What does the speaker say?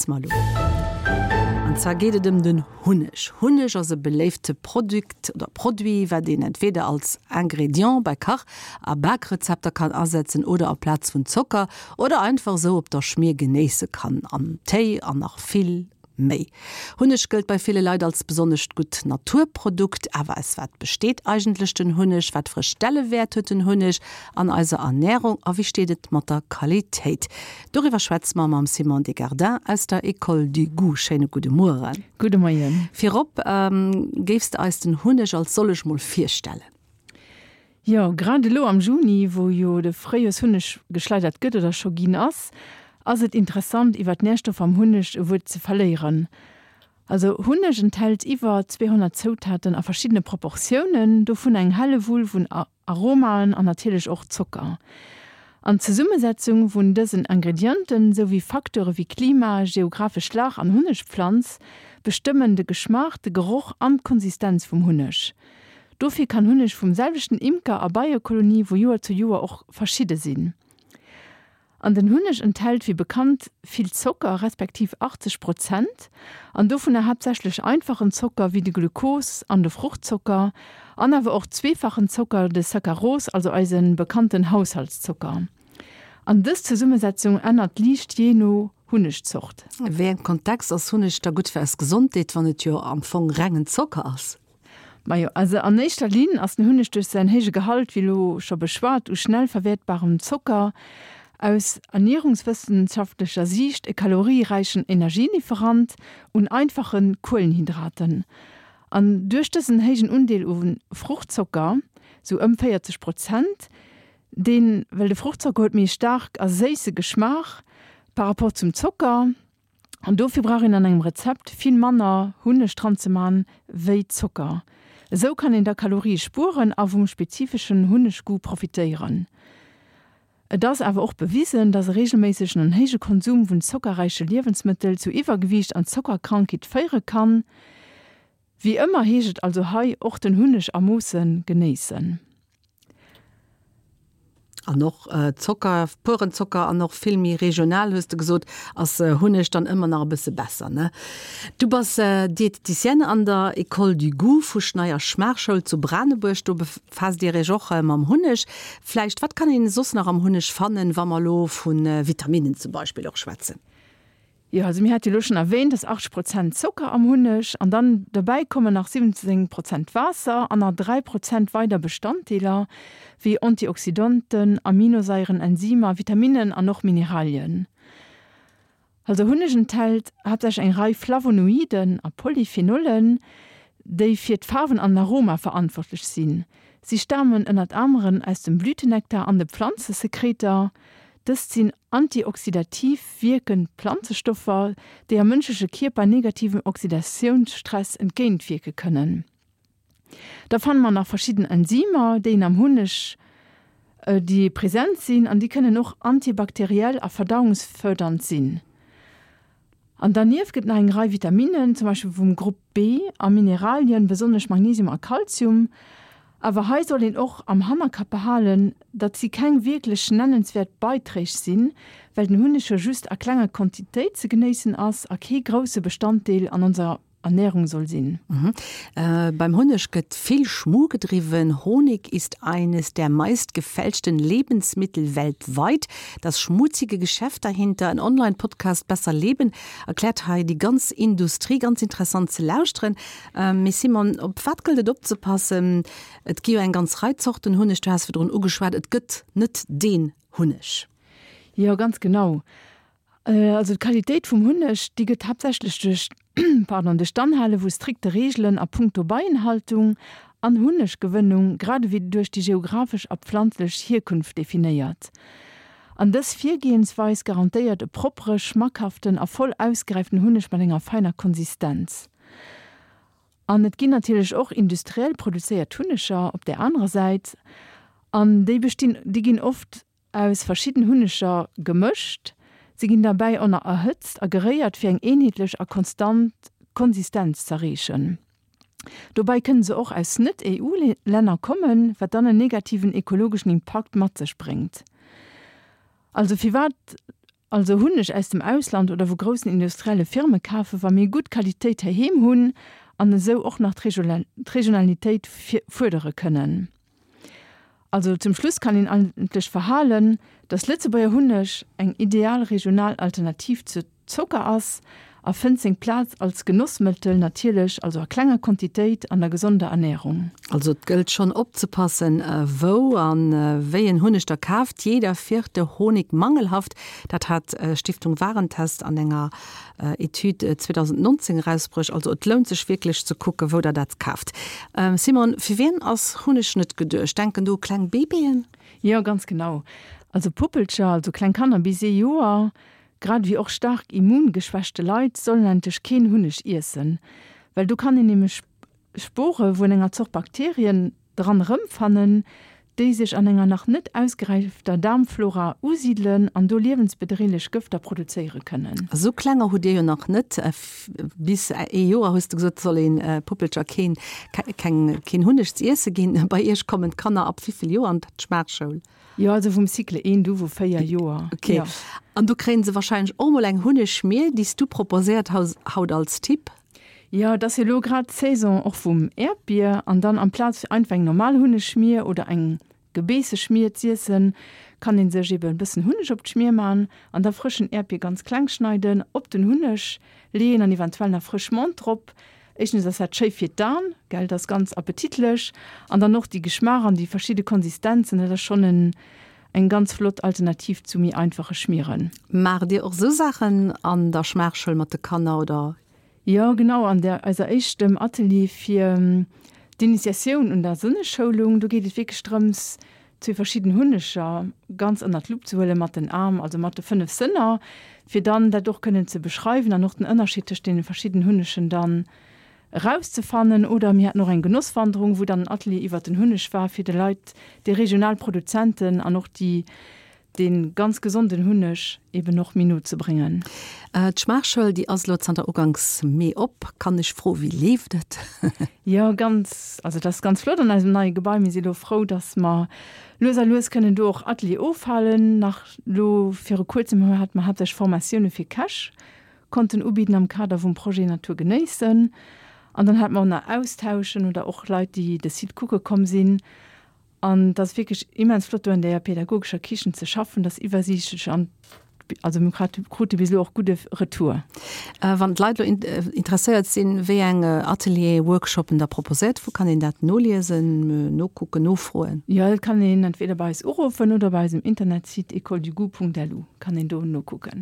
schwätze mer elo. An zwar geet et ëm den Hunneg. Hunneg ass e beléifte Produkt oder Produit, wat een entweder als Ingrédient bei Kach a Bakrezepter kann asetzen oder aplaz vun Zocker oder einfach esou op der Schmier genéisse kann, am Téi an nach vill méi. Hunneg gëllt bei ville Leit als besonnescht gutt Naturprodukt. Awer aus wat besteet eigentlech den Hunneg? Wat fir e Stellewäert huet den Hunneg an eiser Ernärung a wéi steet et mat der Qualitéit? Doriwwer schwätze mer mam Simon Desgardins aus der École du Goût. Schéine gudde Mueren. Gudde Moien. Virop, géifs de eis den Hunneg als sollech mol virstellen? Jo, grad elo am Juni, wou jo de Fréijoershunneg geschleidert gëtt oder scho ginn ass, ass et interessant iwwer d'Närstoffer am Hunneg e Wuert ze verléieren. Also Hunneg enthält iwwer 200 Zoutaten a verschiddene Proportiounen, dovun eng Hellewull vun Aromaen an natierlech och Zocker. An d'Zesummesetzung vun dësen Ingredienten, sou wéi Facteure wéi Klima, geographesch Lag an Hunnegpflanz bestëmmen de Geschmaach, de Geroch an d'Konsistenz vum Hunneg. Dofir kann Hunneg vum selwechten Imker a Beiekolonie vu Joer zu Joer och verschidde sinn. An den Hunneg enthält wéi bekannt vill Zocker, respektiv 80 Prozent, an dovunner haaptsächlech einfachen Zocker wéi de Glukos an de Fruchtzocker an awer och zweefachen Zocker, de Saccharose, also eise bekannten Haushaltszocker. An dës Zesummesetzung ännert liicht jee no Hunnegzort. A wéi engem Kontext ass Hunneg da gutt fir eis Gesondheet, wann et jo am Fong rengen Zocker ass? Majo, also an éischter Linn ass den Hunneg duerch säin héije Gehalt, wéi elo scho beschwat, u schnell verwäertbarem Zocker, aus ernierungswëssenschaftlecher Siicht e kalorieräichen Energielieferant un einfache Kuelenhydraten. An duerch dësen héijen Undeel u Fruchtzocker, sou ëm 40 Prozent, deen, well de Fruchtzocker huet méi e staark a séisse Geschmaach par rapport zum Zocker, An dofir brauch een an engem Rezept vill manner Hunneg dran ze man wéi Zocker. Esou kann een da Kalorie spueren a vum spezifeschen Hunneggoût profitéieren. Et ass awer och bewisen, dass e regelméissegen an héije Konsum vun zockerräiche Liewensmëttel zu Iwwergewiicht an Zockerkrankheet féiere kann. Wéi ëmmer heescht et also hei och den Hunneg a Moosse genéissen. An och Zocker, puren Zocker an och vill méi regional, hues de gesot, ass Hunneg dann ëmmer nach e bësse besser, ne? Du bass Diététicienne an der École du Goût vu Schneier Schmaachschoul zu Branebuerg. Do befaasst Dir Iech och mam Hunneg. Vläicht, wat kann een soss nach am Hunneg fannen, wa mer elo vu Vitaminnen zum Beispill och schwätzen? Jo, also mir hate jo elo schonn erwähnt, dass 80 Prozent Zocker am Hunneg an dann dobäi kommen nach 17 Prozent Waasser an nach 3 Prozent weider Bestanddeeler wéi Antioxydanten, Aminosaieren, Enzymer, Vitaminnen an och Mineralien. Also Hunneg enthält haaptsächlech eng Rei Flavonoiden a Polyphenollen, déi fir d'Faarwen an den Aroma verantwortlech sinn. Si stamen ënnert aneren aus dem Blütenektar an de Pflanzesekreter. Dëst sinn antioxidativ wierkend Planzestoffer, déi am mënschleche Kierper negativem Oxidatiounsstress entgéintwierke kënnen. Da fanne mer nach verschidden Enzymer, déi een am Hunneg, déi present sinn an déi kënnen och antibakteriell a verdauungsfërdernd sinn. An dernieft gëtt nach eng Rei Vitaminnen, zum Beispill vum Grupp B, a Mineralien, besonnesch Magnesium a Kalzium. Awer hei soll een och am Hannerkapp behalen, datt si keng wierklech nennenswäert Beiträg sinn, well den Hunneg jo just a klenger Quantitéit ze genéissen ass a kee grousse Bestanddeel an onser Ernährung soll sinn. Beim Hunneg gëtt vill Schmu gedriwwen. Honig ist eines der meist gefälschten Lebensmittel weltweit. Das schmutzige Geschäft dahinter, en Online-Podcast Besser Leben erkläert hei déi ganz Industrie. Ganz interessant ze lauschteren. Mee Simon, op wat gëllt et opzepassen? Et gi jo eng ganz Rei Zorten Hunneg, du has virdrun ugeschwat, et gëtt net deen Hunneg. Jo, ganz genau. Also d'Qualitéit vum Hunneg, déi gëtt haaptsächlech duerch, pardon, duerch d'Anhale vu strikte Reegelen a punkto Beienhaltung an Hunneggewënnung, grad ewéi duerch déi geographesch a pflanzlech Hierkunft definéiert. An dës Virgehensweis garantéiert e proppere, schmackhaften a voll ausgeräiften Hunneg mat enger feiner Konsistenz. An et ginn natierlech och industriell produzéiert Hunneger op där anerer Säit, an déi bestinn, déi ginn oft Aus verschidden Hunneger gemëscht. Se ginn derbäi ënner erhëtzt a geréiert fir eng eenheetlech a konstant Konsistenz z'erreechen. Dobäi kënne se och aus net-EU-Länner kommen, wat dann en negativen ekologeschen Impakt mat sech bréngt. Also firwat? Also Hunneg aus dem Ausland oder vu groussen industrielle Firme kafen, wa mir gutt Qualitéit heiheem hunn an esou och nach d'Regionalitéit fuerdere kënnen? Also zum Schluss kann een eigentlech verhalen, dass Lëtzebuerger Hunneg eng ideal regional Alternativ zur Zocker ass a fënnt seng Plaz als Genossmëttel, natierlech also a klenger Quantitéit an der gesonder Ernährung. Also et gëllt schonn opzepassen, wou a wéi en Hunneg der kaaft. Jeder vierte Honig mangelhaft, dat hat Stiftung Warentest an enger Etüd 2019 erausbruecht. Also et lount sech wierklech ze kucken, wou der dat kaaft. Simone, fir wien ass Hunneg net geduecht? Denken do u kleng Baby'en? Jo, ganz genau. Also Puppelcher, also kleng Kanner bis ee Joer, Grad ewéi och staark immungeschwächte Leit sollen eigentlech keen Hunneg iessen, well do kann een nämlech Spore vun enger Zort Bakterien dran erëmfannen, déi sech an enger nach net ausgeräifter Daarmflora usidelen an do liewensbedreelech Gëfter produzéiere kënnen. Esou klenger hutt Dir jo nach net. Bis ee Joer, hues de gesot, soll ee Puppelcher keen keen Hunneg z'iesse ginn. Bei Iech kommen d'Kanner ab wéivill Joer an d'Schmaachschoul? Jo, also vum Cycle 1 du vu 4 Joer. Ok. Jo. An do kréien se wahrscheinlech och mol eng Hunnegschmier, déi s du proposéiert haus haut als Tipp. Jo, et ass jo elo grad d'Saison och vum Äerdbier an dann amplaz fir einfach eng normal Hunnegschmier oder eng Gebeesseschmier z'iessen, kann een sech eben e bëssen Hunneg op d'Schmier man an da frëschen Äerdbier ganz kleng schneiden, op den Hunneg leeën an eventuell nach frësch Menthe drop. Éischtens ass dat schéi fir d'An, gell, dat ass ganz appetitlech an dann och déi Geschmaach an déi verschidde Konsistenzen, dat ass schonn en eng ganz flott Alternativ zu méi einfache Schmieren. Maacht Dir och esou Saachen an der Schmaachschoul mat de Kanner oder? Jo, genau, an der eiser éischtem Atelier fir d'Initiatioun un der Sënneschoulung, do geet et wierklech drëms, zwee verschidden Hunneger ganz ënnert d'Lupp ze huelen mat den Aarm, also mat de 5 Sënner, fir dann dat och kënnen ze beschreiwen an och den Ënnerscheed tëscht deene verschidden Hunnegen dann erauszefannen. Oder mir haten och eng Genosswanderung, wou dann en Atelier iwwert den Hunneg war, fir de Leit déi regional Produzenten an och déi dee ganz gesonden Hunneg eben och méi no ze bréngen. D'Schmaachschoul, déi ass elo zanter uganks Mee op. Kann ech froen, wéi leeft et? Jo, ganz, also et ass ganz flott an eisem neie Gebai. Mir si elo frou, datt mer lues a lues kënnen do och Atelier ofhalen. Nach elo viru kuerzem hate mer haaptsächlech Formatioune fir Käch konnten ubidden am Kader vum Projet Natur genéissen. An dann hate mer och nach Austauschen oder och Leit, déi de Site kucke komm sinn. An et ass wierklech immens flott do an där pädagogescher Kichen ze schaffen, dat ass iwwersiichtlech an also mir krute bis elo och gudde Retour. Wann d'Leit elo interesséiert sinn, wéi eng Atelieren, Workshoppen Der proposéiert, wou kann een dat noliesen, nokucken, nofroen? Jo, dat kann een entweder bei eis uruffen oder bei eisem Internetsite écoledugout.lu kann een do nokucken.